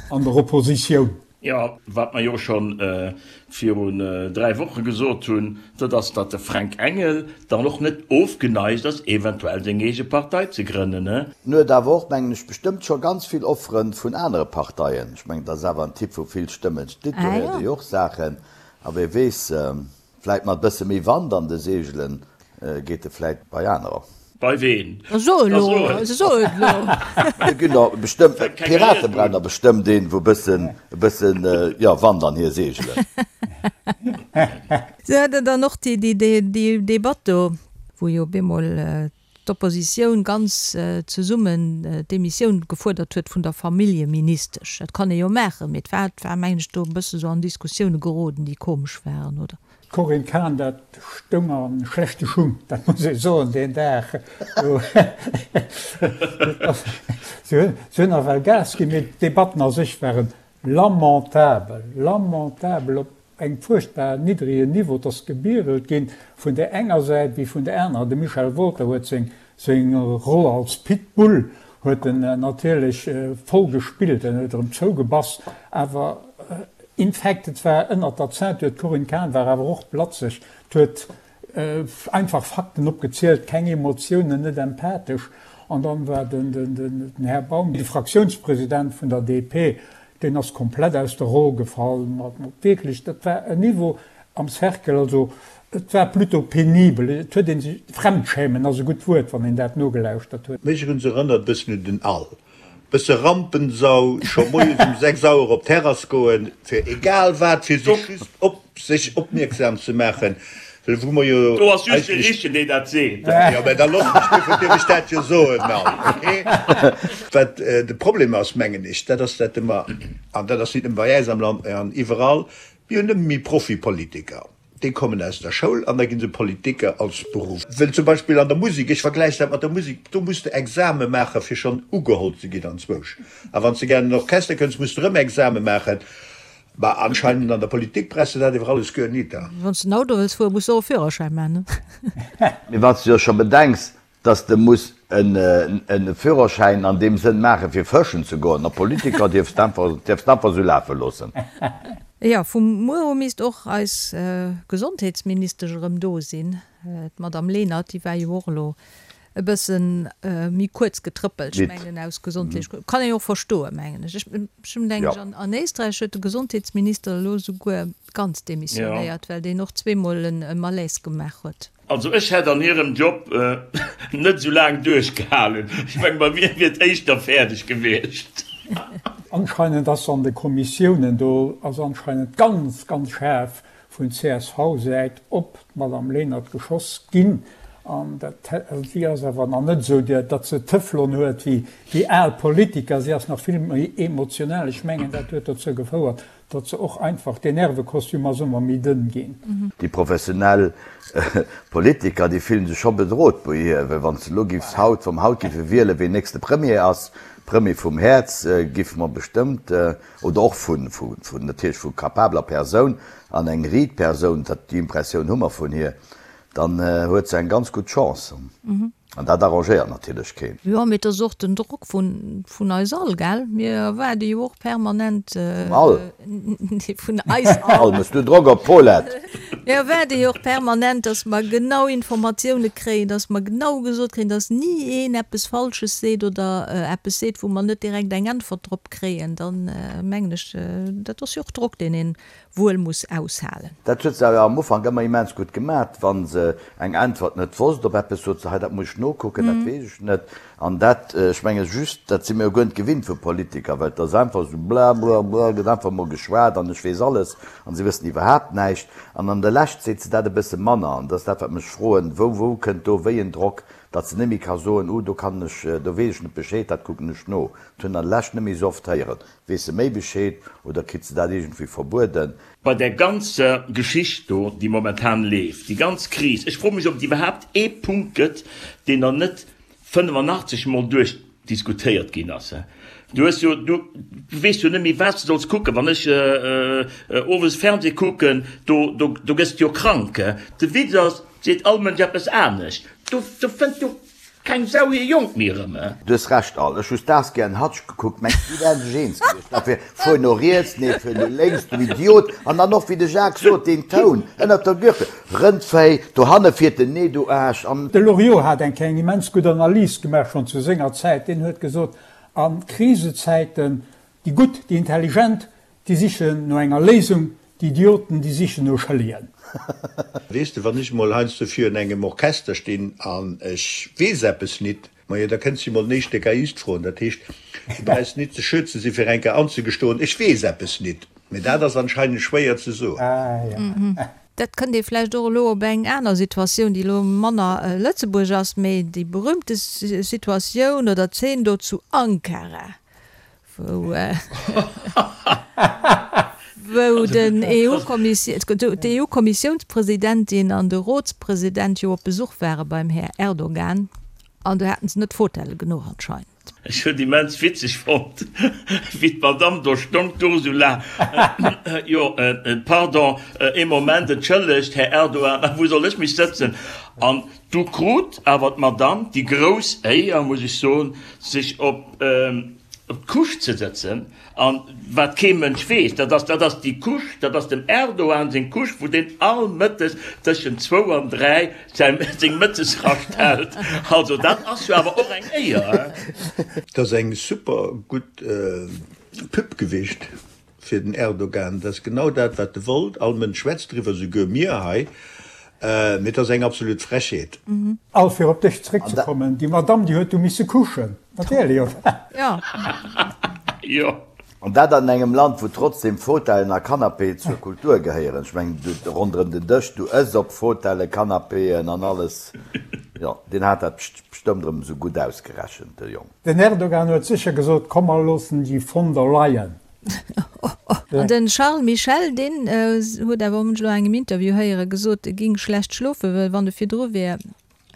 E: an der Oppositioun.
D: Jo, wat mer jo scho virun 3 Woche gesot hunn, dat ass, datt de Fränk Engel dann och net ofgeneigt ass, eventuell seng eege Partei ze grënnen.
C: En huet awer och, mengen ech, bestëmmt scho ganz vill Offere vun anere Parteien. Ech mengen, dat ass awer en Typ, wou vill Stëmmen steet. Do héiert ee jo och Saachen. A wie weess, vläit mat e bësse méi Wand an de Seegelen geet e vläit bei anerer.
D: Bei ween?
A: So elo, so et elo.
C: Do ginn der bestëmmt, d'Pirate brauchen der bestëmmt een, wou bëssen, e bëssen, jo, Wand an hir Seegelen.
A: Se hat dann och déi, déi, déi, déi Debatt do, wou jo op eemol d'Oppositioun ganz zesummen d'Demissioun gefuerdert huet vun der Familljeministesch. Dat kann ee jo maachen, mee et war, et war, mengen ech, do e bësse sou an Diskussioune geroden, déi komesch waren, oder?
E: D'Corinne Cahen, dat stoung a schlechte Schung, dat muss ee soen, deen Dag. Si hunn nawell Gas ginn, mee d'Debatten a sech ware lamentabel, lamentabel, op engem fuerchtbar niddregen Niveau. Et ass gebierelt ginn, vun där enger Säit wéi vun där anerer. De Michel Wolter huet seng Seng Roll als Pitbull huet en natierlech voll gespillt, en huet erëm zougebass, awer in fact, et war ënnert der Ceinture, d'Corinne Cahen war awer och blatzeg, d'huet einfach Fakten opgezielt, keng Emotiounen, net empathesch. An dann war den Här Baum, de Fraktiounspresident vun der DP, Deen ass komplett aus der Roll gefall, mat wierklech, dat war en Niveau am Cercle, also et war plutôt pénibel, et huet ee sech, Fremdschämen ass e gutt Wuert, wann een dat nogelauschtert huet.
B: Mech hunn se erënnert bëssen un den Al, bësse Rampensau, scho moies um 6 Auer op d'Terrass goen, fir egal wat, fir sech just op sech opmierksam ze maachen, well wou mer jo
D: Do ass just de Richtegen, deen dat seet.
B: Jo, mä da looss mech, duerfir dierf ech dat jo soen, Al, okay? Wat de Problem ass, mengen ech, dat ass, dat ëmmer, an dat ass nit nëmme bei äis am Land, mä an iwwerall, mir hunn ëmmer méi Profipolitiker. Déi kommen aus der Schoul an da gi se Politiker als Beruff. Well zum Beispill an der Musek, ech vergläichen dat mat der Musek, do muss de Exame maachen, fir schonn ugeholl ze ginn anzwousch. A wann s de gär an den Orchester kënns, muss de erëm Exame maachen. Bah, anscheinend an der Politik brauchs de dat iwwer alles guer nit.
A: Wann s de en Auto wëlls fueren, muss de och e Führerschäin maachen,
C: ne? Mee wann s de jo scho bedenks, dass de muss e Führerschäin an deem Sënn maachen, fir fëschen ze goen, a Politiker dierfs de einfach, dierfs de einfach esou lafe loossen.
A: Jo, vu muer u misst och eis Gesondheetsministesch erëm do sinn, d'Madame Lenert. Déi war jo och elo e bësse méi kuerz getrëppelt, ech mengen aus gesondheetlech Grënn. Kann een jo och verstoen, mengen ech. Ech hunn, denken ech, an Éisträich huet de Gesondheetsminister elo souguer ganz demissionéiert, well deen och zweemol e Malaise gemaach huet.
D: Also ech hätt an hirem Job net esou laang duerchgehalen. Ech mengen, bei mir wier et éischter fäerdeg gewiescht.
E: Anscheinend ass an de Kommissiounen, do ass anscheinend ganz, ganz schaarf vun CSV-Säit op d'Madame Lenert geschoss ginn. An dat, si ass awer nach net esou, datt se Teflon huet wéi al Politiker. Si ass nach vill méi emotional. Ech mengen, dat huet dozou gefouert, datt se och einfach, deen Nervekostüm ass ëmmer méi dënn ginn.
C: Déi professionell Politiker, déi fillen sech scho bedrot bei hir, well wann s de elo giffs haut, wa mer haut giffe wielen, ween nächste Premier ass, Premier vum Häerz, giffe mer bestëmmt, oder och vun, vun natierlech vu capabler Persoun an eng Riit Persoun, dat déi Impressioun hu mer vun hir, dann huet se eng ganz gutt Chance. An dat arrangéiert natierlech keen.
A: Jo, mee et ass och den Drock vun, vun eis all, gell? Mir erwaarde jo och permanent.
C: Vum all?
A: Nee, vun eis all.
C: All, méchs du Drock op d'Paulette?
A: Mir erwaarde jo och permanent, dass mer genau Informatioune kréien, dass mer genau gesot kréien, dass ni een eppes Falsches seet oder eppes seet, wou mer net direkt eng Äntwert drop kréien. Dann mengen ech, dat ass jo och Drock, deen een wuel muss aushalen.
C: Dat huet se awer am Ufank ëmmer immens gutt gemat. Wa se eng Äntwert net wosst op eppes, sot se, hei dat muss ech nokucken, dat weess ech net. An dat, ech menge just, dat si mir jo guer net gewinnt vu Politiker, well et ass einfach esou bla bla bla, gëtt einfach mol geschwat an ech weess alles an si wëssen iwwerhaapt näischt. An an der Lescht seet se dat e bësse manner. An dat ass dat, wat mech froen, wou, wou kënnt do wéi en Drock, datt se net méi ka soen, uh do kann ech, do weess ech net Bescheed, dat kucken ech no. Dat hunn an der Lescht net méi esou oft héieren. Weess se méi Bescheed oder kritt se dat iergendwéi verbueden?
D: Bei där ganzer Geschicht do, déi momentan leeft, déi ganz Kris, ech froe mech, ob et iwwerhaapt ee Punkt gëtt, deen nach net 85 Mol duerchdiskutéiert ginn ass. Du hues jo, du weess jo net méi, wat s de solls kucken. Wann ech owes Fernseh kucken, do, do, do gëss de jo krank. De Witz ass, et seet all Mënsch eppes anescht. Do, do fënnt jo Keng Sau hir Jonk méi erëm, eh?
C: Du hues Recht Al, ech hu Starsky and Hutch gekuckt, mengs déi wären sech eens gewiescht, dat wier fuer no riets, nee fuer no lénks, du Idiot, an dann och wéi de Jacques sot, deen Toun ënnert der Gürtel, Rëndvéi, dohanne fiert en, nee du Aarsch, an.
E: De Loriot hat eng Kéier eng immens gutt Analys gemaach, schonn zu senger Zäit. Deen huet gesot, a Krisezäiten, déi Gutt, déi Intelligent, déi sichen no enger Léisung, Déi Idioten, déi sichen no Schëllegen.
B: Weess de, wann ech emol heiansdo virun engem Orchester stinn an ech weess eppes nit, majo, da kënns de mol den éischte Geiist froen. Dat heescht, du brauchs nit ze schö ze si fir eng Kéier anzegestoen, ech weess eppes nit. Mee dat ass anscheinend schwéier ze soen.
A: Dat kënnt ee vläicht och elo op eng aner Situatioun, déi elo manner Lëtzebuerg ass, mee déi berühmte Situatioun oder Zeen do zu Ankara, wou wou den d'EU-Kommissiounspresidentin an de Rotspresident jo op Besuch ware beim Här Erdogan, an do haten se net Fotelle genuch anscheinend.
D: Ech hunn immens witzeg fonnt, wéi d'Madame do stong, d'Ursula, Jo, pardon, ee Moment, entschëllegt, Här Erdogan, a wou soll ech mech sëtzen? An du krut awer d'Madame déi grouss Éier, muss ech soen, sech op d'Couche ze sëtzen. An wat kee Mënsch weess, dat ass, dat ass déi Couche, dat ass dem Erdogan seng Couche, wou deen all Mëttes tëschent zwou an dräi säi, seng Mëttesrascht hält. Also dat ass jo awer och eng Éier,
B: hein? Dat ass eng super gutt Pub gewiescht fir den Erdogan. Dat ass genau dat, wat e wollt. All Mënsch schwätzt driwwer, souguer mir hei. Mee et ass eng absolut Frechheet.
E: Al, fir op dech zeréckzekommen, déi Madamm, déi huet du misse kuschen, natierlech, oder?
A: Jo.
D: Jo.
C: An dat an engem Land, wou trotzdem Fauteuilen a Canapéen zur Kultur gehéieren. Ech mengen, du, ronderëm den Dësch, du ëss op Fauteuilen, Canapéen an alles. Jo, deen hat dat bestëmmt erëm esou gutt ausgerechent, de Jong.
E: Den Erdogan huet sécher gesot, Komm, mer loossen déi von der Leyen.
A: An den Charles Michel, deen huet awer, hunn ech elo an engem Interview héieren, gesot, e ging schlecht schlofen, well wann e virdru wär,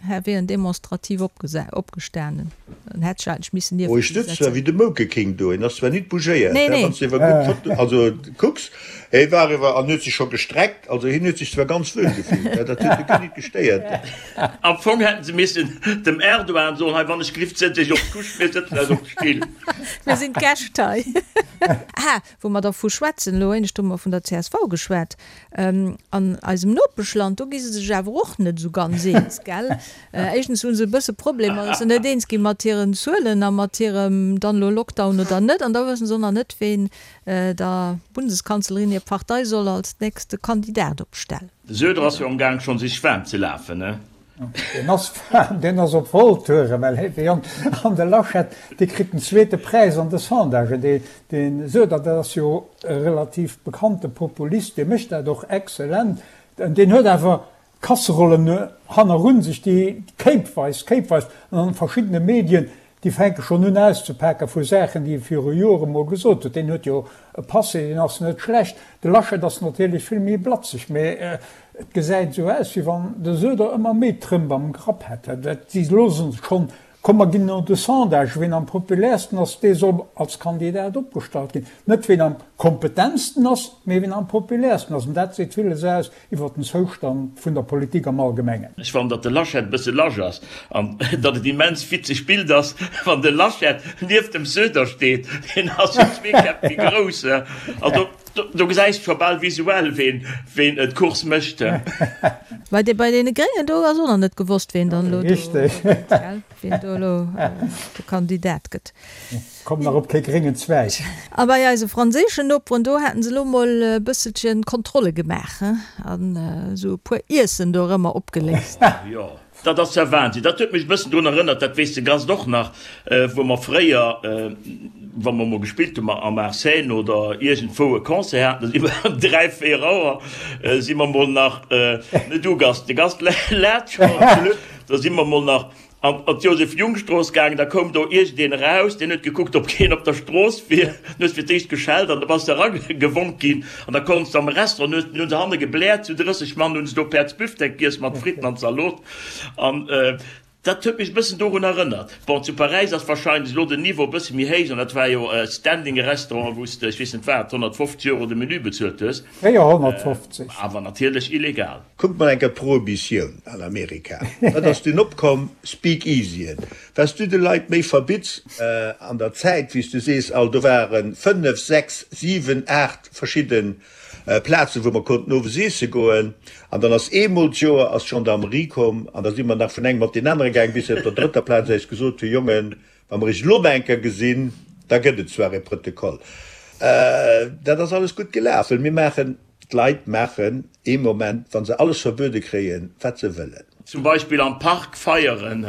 A: hä wier en demonstrativ opgestanen an hätt sech eigentlech missen
B: nieft
A: Oh,
B: hie
A: ech sëtz
B: zwar setzen. wéi de Moke King do, en ass zwar nit bougéiert, Nee, hä, nee. wann s de iwwer gutt Foto, also kucks, hie war iwwer an huet sech scho gestreckt, also hien huet sech zwar ganz wuel gefillt, hä, dat huet e guer nit gestéiert.
D: Am Fong hätten se missen dem Erdogan soen, hei wann ech glift, sëtz iech op d'Couche, mir sëtzen eis op d'Still.
A: Mir sinn d'Gäscht hei. Ah, wou mer dervu schwätzen, elo éinescht hu mer vun der csv geschwat. An eisem Nopeschland, do gi se sech awer och net esou ganz eens, gell? Éischtens hu se e bësse Problemer, datt se net eens gi mat hiren Zuelen a mat hirem dann elo Lockdown oder net. An da wësse se och nach net, ween der Bundeskanzlerin hir Partei soll als nächste Kandidat opstellen.
D: De Söder ass jo am Gaang schonn sech waarm ze lafen, ne?
E: Deen ass waarm, deen ass op Volltouren, well hee Jong, an de Laschet, dee kritt den zweete Präis an de Sondagen. Dee, de Söder, dat ass jo e relativ bekannte Populist, dee mécht dat och exzellent, deen huet awer Kasserollen hannerun sech, déi kéipweis, kéipweis an an verschiddene Medien, déi fänke schonn un auszepake vu Saachen, déi e viru Jore mol gesot huet. Deen huet jo e Passé, deen ass net schlecht. De Laschet ass natierlech vill méi blatzeg, mä et gesäit esou aus, wéi wann de Söder ëmmer méi Trëmp am Grapp hätt. Si loosse schonn. Komm mer ginn no de Sondage, ween am populärsten ass, dee soll als Kandidat opgestallt ginn. Net ween am kompetentsten ass, mee ween am populärsten ass. An dat seet villes aus iwwer den Zoustand vun der Politik am Allgemengen.
D: Ech fannen datt de Laschet e bësse lasch ass an datt et immens witzeg Bild ass wann de Laschet nieft dem Söder steet, deen ass jo zwee Käpp méi grouss, also do gesäis de scho bal visuell ween ween d'Course mécht.
A: Bei de bei deene Gréngen do ass och nach net gewosst ween dann elo do, gell, ween do elo de Kandidat gëtt.
E: Komm nach op kee gréngen Zweig.
A: A bei eise franséischen Noperen, do haten se elo mol e bësselchen Kontrolle gemaach, he, an esou e puer Iessen do erëmmer opgeléist.
D: Jo, dat ass ja Wahnsinn. Dat huet mech e bëssen drun erënnert, dat weess de Gast och nach, wou mer fréier, wa mer mol gespillt hu am Arsène oder iergendwou e Concert haten, da si mer ëm 3, 4 Auer si mer mol nach, ne du Gast, de Gast laacht schonn, da si mer mol nach An an d'Joseph-Jung-Strooss gaangen, da koum do iergendeen eraus, deen huet gekuckt, ob keen op der Strooss wier, dann hues de fir d'éischt geschellt an da bass de eragewonk ginn an da konns de am Restaurant, hunn hunn se hanne gebläert, zu 30 Mann hunn se do Päerds Büftek giess mat Fritten an Zalot an dat huet mech e bëssen dorun erënnert. Bon, zu Paräis ass wahrscheinlech elo den Niveau e bësse méi héich an dat war jo e Standing Restaurant, wou s de, ech weess net wat, 150 Euro de Menü bezuelt hues.
E: 450.
D: Awer natierlech illegal.
B: Kuckt mol enker d'Prohibitioun an Amerika, wat ass dunn opkomm? Speakeasyen. Wat s du de Leit méi verbitts. An der Zäit, wéi s du sees, all, do ware 5, 6, 7, 8 verschidde Plazen, wou mer konnten owes iesse goen. An dann ass eemol d'Joer ass d'Gendarmerie komm an da si mer nach vun engem op deen anere gaang, bis se op der drëtter Plaz eis gesot hu, Jongen, Wa mer iech elo nach eng Kéier gesinn, da gëtt et zwar e Protokoll. Dat ass alles gutt gelaf, well mir maachen, d'Leit maachen ee Moment, wa se alles verbuede kréien, wat se wëllen.
D: Zum Beispill am Park feieren,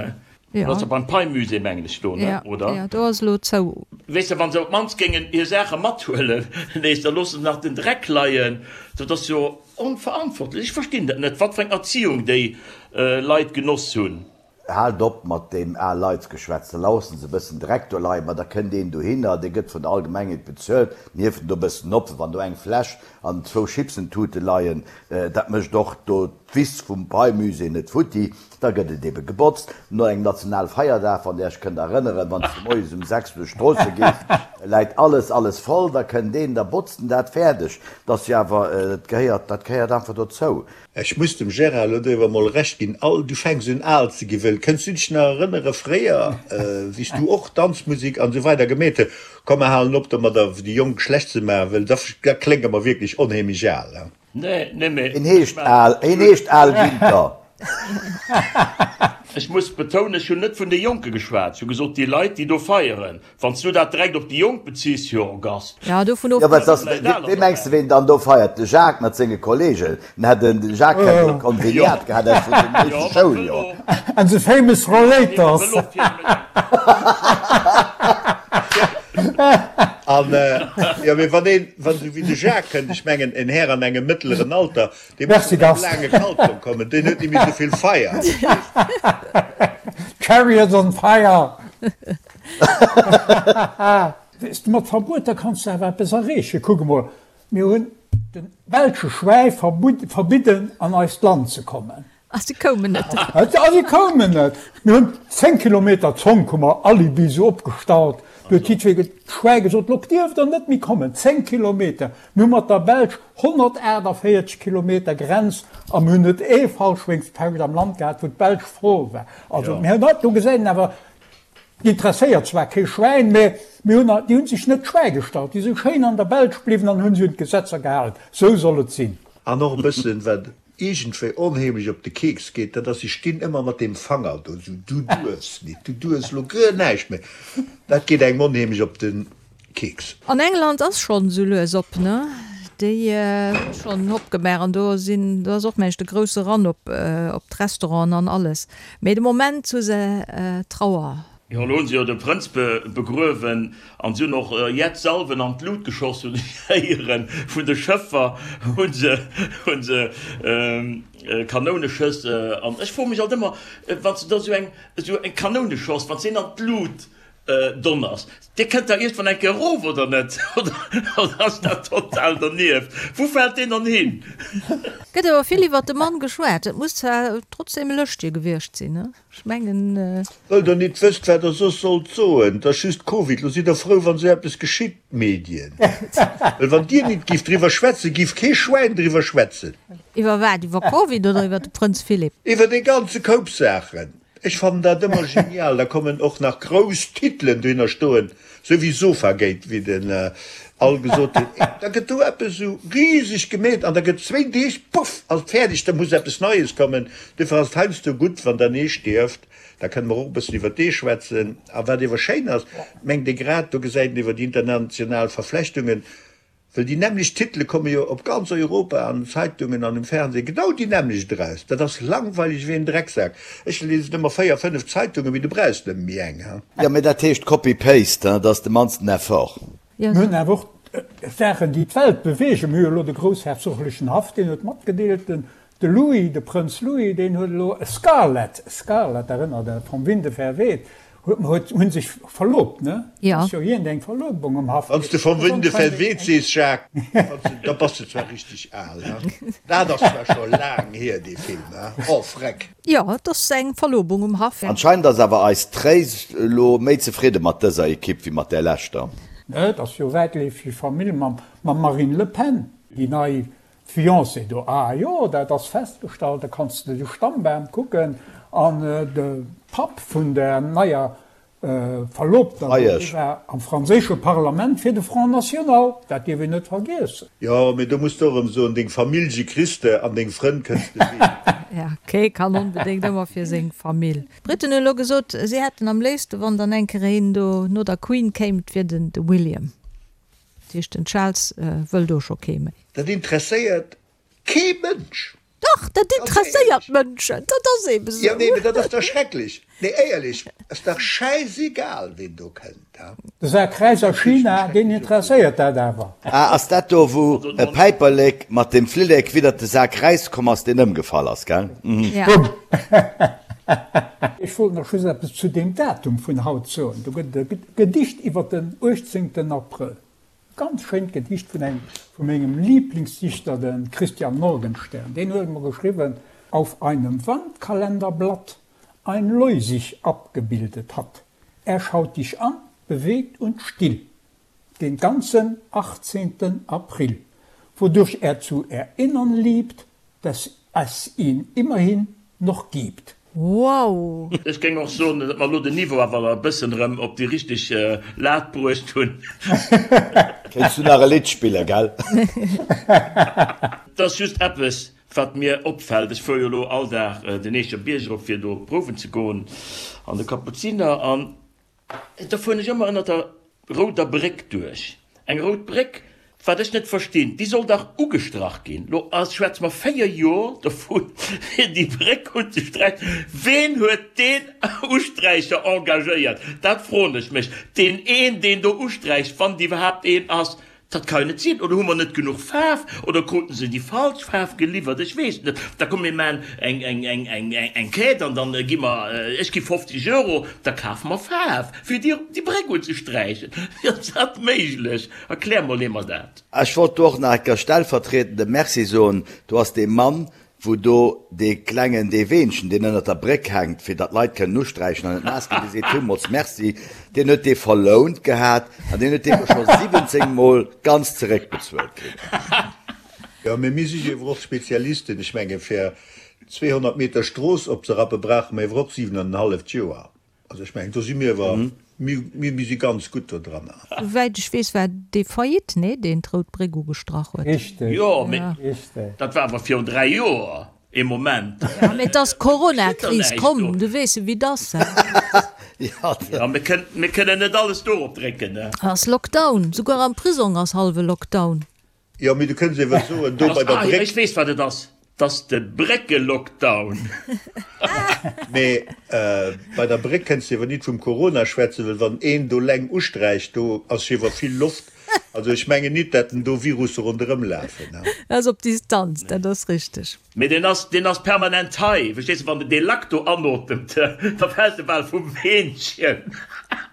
D: dat ass jo beim Pei-Musée, mengen ech, do, ne, oder?
A: Jo, do ass elo zou.
D: Weess de, wa se op d'mannst géingen hir Saache mathuelen nees, da loosse se nach den Dreck leien. Dat ass jo onverantwortlech. Ech verstinn dat net, wat fir eng Erziehung déi Leit genoss hunn.
C: Haalt op mat deem al Leitsgeschwätz, da laussen se e bëssen Dreck do leien, ma da kënnt een dohinner, dee gëtt vun der Allgemengheet bezuelt, den hieft en do e bëssen op, wann do eng Fläsch an zwou Chipsentute leien, dat mécht och do d'Wiss vum Pei-Musée net futti, da gëtt et ebe gebotzt. No engem Nationalfeierdag, wann Dir Iech kënnt erënneren, wann s de moies um 6 duerch d'Stroosse gees, läit alles, alles voll, da kënnt een, da botzt en dat fäerdeg. Dat ass jo awer, dat gehéiert, dat gehéiert einfach dozou.
B: Ech muss dem Gérard elo do awer mol Recht ginn, all, du fänks un al ze gi wëll. Kënns du dech nach erënnere fréier, wéi s du och Danzmusik an esou weider gemeet hues? Komm mer halen op domadder déi Jonk schlecht ze maachen, wëll da da klénge mer wierklech onheemlech al.
D: Nee, nee, mee
C: Hien heescht Al, hien heescht Al Winter.
D: Ech muss betounen, ech hunn net vun de Jonke geschwat, ech hu gesot déi Leit, déi do feieren. Wann s du dat direkt op déi Jonk beziss, jo, Gast.
A: Ja, dovun
C: Jo, wat ass, wee mengs de, ween dann do feiert? De Jacques mat senge Kollegen. Den hätt en, de Jacques hätt e Konveniat gehat aus vun sengem éischte Schouljoer.
E: And the famous Rollators.
B: An, jo, mee wann een, wann esou wéi de Jacques kënnt, ech mengen, en Här an engem mëttleren Alter, dee muss
E: Merci,
B: mat engem
E: Gast.
B: laange Kaltong kommen, deen huet net méi esou vill Feier.
E: Chariots on fire! Weess de, mat Verbueter kanns de awer eppes erreechen. Kuck emol, mir hunn de belsche Schwäi verbidden an eist Land ze kommen.
A: A si koumen net.
E: A si koumen net. Mir hunn 10 Kilometer Zonk hu mer Alibi sou opgestallt. Do huet jiddweree d'Schwäi gesot, Lo dierft der net méi kommen. 10 Kilometer. Mir hu mat der Belsch 148 Kilometer Grenz a mir hunn net ee Fallschwéngspecht am Land gehat, wou d'Belsch frou war. Also mir hunn, do gesäit een awer, Interesséiert zwar kee Schwäin, mä mir hunn, déi hunn sech net d'Schwäi gestallt, déi si schéin an der Belsch bliwwen an hunn sech un d'Gesetzer gehalen. Sou soll et sinn.
B: An och e bëssen, wat iergendwéi onheemlech op de Keks geet, dat ass, si stinn ëmmer mat deem Fanger do, esou, du duerfs nit, du duerfs elo guer näischt méi. Dat geet engem onheemlech op de Keks.
A: An England ass schonn esou lues op, ne? Déi hu schonn opgemaach an do sinn, do ass och mengt de grousse Run op op d'Restauranten an alles. Mee de Moment hu se Trauer.
D: Jo, elo hunn se jo de Prënz begruewen an se hunn och jett Salven an d'Lut geschoss, hunn ech héieren. Vun de Schëffer hu se hu se Kanouneschëss. An ech froe mech alt ëmmer, wann s de da esou eng esou eng Kanouneschoss, wann s de een an d'Lut. Donners, Dir kënnt da iergendwann eng Kéier erof, oder net? Oder ass dat total dernieft? Wou fält deen dann hin?
A: Gëtt awer vill iwwert de Mann geschwat. Et muss zwar trotzdem e Lëschtje gewiescht sinn, ne? Ech mengen.
B: Wëll der nit wësst wat der soss sollt soen, 't ass just Covid, lo sidd der frou wann sou eppes geschitt, d'Medien, well wann dir nit gift driwwer schwätzen, giff kee Schwäin driwwer schwätzen.
A: Iwwer wat? Iwwer Covid oder iwwer de Prënz Philipp?
B: Iwwer dee ganze Koup Saachen. Ech fannen dat ëmmer genial, da kommen och nach grouss Titelen dohinner stoen, sou wéi Sofagate, wéi den Al gesot huet, da gëtt do eppes esou riseg gemeet an da gëtt zwéin Deeg, puff, ass et fäerdeg, da muss eppes Neies kommen. Duerfir ass et heiansdo gutt, wann dann ee stierft, da kënne mer och e bëssen iwwer dee schwätzen. A wat ewer schéin ass, mengt ee grad, do gesäit een iwwer déi international Verflechtungen, Well déi nämmlecht Titele komme jo op ganz Europa an den Zeitungen an um Fernseh genau déi nämmlecht eraus. Dat ass langweileg wéi en Drecksak. Ech liesen ëmmer 4, 5 Zeitungen, mee du brauchs nëmme méi eng, ha?
C: Jo, mee dat heescht Copy-Paste, dat ass de mannsten Effort.
E: Mir hunn awer och Saachen, déi d'Welt beweegen. Mir hu jo elo de groussherzoglechen Haff, deen huet matgedeelt, den De Louis, de Prënz Louis, deen huet elo e Scarlett, Scarlett, erënnert Der, vom Winde verweht, huet, hunn sech verlobt, ne?
A: Jo.
E: Ass jo iergend eng Verlobung um Haff.
B: Wann s de vom Winde verweht sees, Jacques, da bass de zwar richteg al, he? Dat ass zwar scho laang hier, dee Film, he? Oh, freck!
A: Jo, et ass eng Verlobung um Haff.
C: Anscheinend ass awer eis Tréis elo méi zefridde mat dëser Ekipp wéi mat där leschter.
E: Ne, et ass jo wäitleefeg Famill mam Marine Le Pen, déi nei D'Fiancée do, Ah jo, dat ass festgestallt, da kanns de de Stammbam kucken. An de Papp vun der neier Verlobter do, dee war am franséische Parlament fir de Front National, dat dierf een net vergiessen.
B: Jo, mee do muss de och erëm soen, deng Famillje kriss de an deng Frënn kënns de ween.
A: Ja, kee kann onbedéngt ëmmer fir seng Famill. D'Britten hunn elo gesot, si hätten am léifste wann dann eng Kéier een do no der Queen kéim, et wier den de William. Dat heescht den Charles wëll do scho kee méi.
B: Dat interesséiert kee Mënsch.
A: Dach, dat interesséiert Mënschen, dat ass eben
B: esou. Jo, nee, mee dat ass dach schrecklech. Nee, éierlech, ass dach schäisegal, ween do kënnt, ha?
E: De Saak Räis a China, deen interesséiert dat awer.
C: Ah, ass dat do, wou e Päiperlek mat dem Flillek widdert de Sak Räis komm ass, deen ëmgefall ass, gell?
A: Ja.
E: Ech wollt nach just eppes zu deem Datum vun haut soen. Do gëtt et e Gedicht iwwer den 18. Abrëll. E ganz schéint Gedicht vun engem vu mengem Lieblingsdichter, de Christian Morgenstern. Deen huet emol geschriwwen, Auf einem Wandkalenderblatt ein Leu sich abgebildet hat. Er schaut dich an, bewegt und still, den ganzen 18. April, wodurch er zu erinnern liebt, dass es ihn immerhin noch gibt.
A: Wow!
D: Ech géing och soen, datt mer elo den Niveau awer e bëssen erëm op déi richteg Lat bruecht hunn.
C: Kéints du nach e Lidd spillen, gell?
D: Et ass just eppes, wat mir opfält, Ech fuere jo elo all Dag den Eecher Bierg erop, fir do prouwen ze goen an de Kapuziner, an Da fueren ech ëmmer ënnert der rouder Bréck duerch. Eng rout Bréck, wat ech net verstinn, déi soll dach ugestrach ginn. Lo schwätze mer 4 Jor dovun, fir déi Bréck unzesträichen. Ween huet deen Usträicher engagéiert? Dat froen ech mech. Deen een, deen do usträicht, wann et iwwerhaapt een ass, Dat ka jo net sinn. Oder hu mer net genuch Faarf? Oder kruten se déi falsch Faarf geliwwert? Ech weess et net. Da komm mir maachen eng, eng, eng, eng, eng Quête an dann gi mer, ech gi 50 Euro, da kafe mer Faarf, fir déi, déi Bréck unzesträichen. Wéi ass dat méiglech? Erklär mol ee mer dat.
C: Ech wollt do och nach eng Kéier stellvertriedend e Merci soen. Do ass dee Mann, wou do dee klengen, dee Weenchen, deen ënnert der Bréck hänkt, fir datt d'Leit kënnen usträichen an net naass ginn, dee seet villmools Merci, deen huet dee verlount gehat an deen huet dee elo scho 17 Mol ganz zeréckbezuelt kritt.
B: Jo, mee mir si jo ewer och Spezialisten. Ech menge fir 200 Meter Strooss opzerappe brauche mer ewer och 7 an en halleft Joer. Also ech mengen, do si mir awer, mir, mir si ganz gutt do dran.
A: Souwäit ech weess, war dee Faillite, nee, deen d'Rout Bréck ugestrach huet.
E: Richteg,
D: Jo, mee dat war awer virun 3 Joer. Ee Moment.
A: Jo, mee et ass d'Corona-Kris komm, du weess jo, wéi 't ass,
D: he? Jo, mir kënnen, mir kënnen net alles dorop drécken, ne?
A: Ass Lockdown, souguer am Prisong ass hallwe Lockdown.
B: Jo, mee du kënns ewer soen, do bei der Bréck.
D: Ech weess, wat et ass, 't ass de Bréckelockdown.
B: Mee bei der Bréck kënns de ewer nit vum Corona schwätzen, well wann een do leng usträicht, do ass jewer vill Loft. Also ech mengen nit, dat en do Virusse ronderëm lafen.
A: Dat ass op Distanz, dat ass richteg.
D: Mee deen ass, deen ass permanent hei, verstees de, wann de dee Lack do anotemt, da fält e bal vum Weenchen.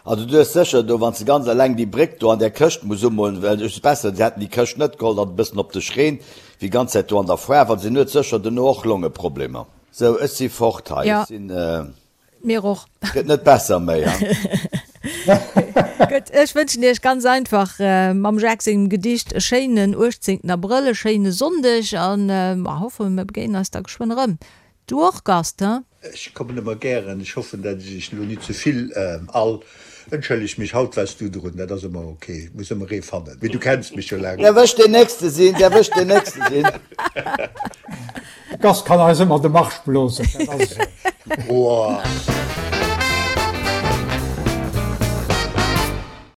C: Also du hues sécher do, wann s de ganz eleng déi Bréck do an där Këscht muss umolen, well et ass besser, se hätten déi Këscht net geholl, datt et e bëssen op dech reent, wéi ganz Zäit do an der Foire, well se huet sécher duerno och Longeproblemer. Sou, ech si fort hei, ech sinn.
A: Mir och.
C: Gëtt net besser méi, ha?
A: Gutt, ech wënschen Iech ganz einfach mam Jacques sengem Gedicht e schéinen 18 Abrëll, e schéine Sonndeg an mer hoffen, mir begéinen eis da geschwënn erëm. Du och, Gast, he?
B: Ech kommen ëmmer gären. Ech hoffen, dat ech iech elo nit ze vill all. Entschëlleg mech, haut waars du drun, dat ass ëmmer ok, et muss ëmmer ee fannen, mee du kenns mech jo laang.
C: Däerf ech deen Nächste sinn? Däerf ech deen Nächste sinn?
E: De Gast kann eis ëmmer de Marsch blosen, dat ass esou.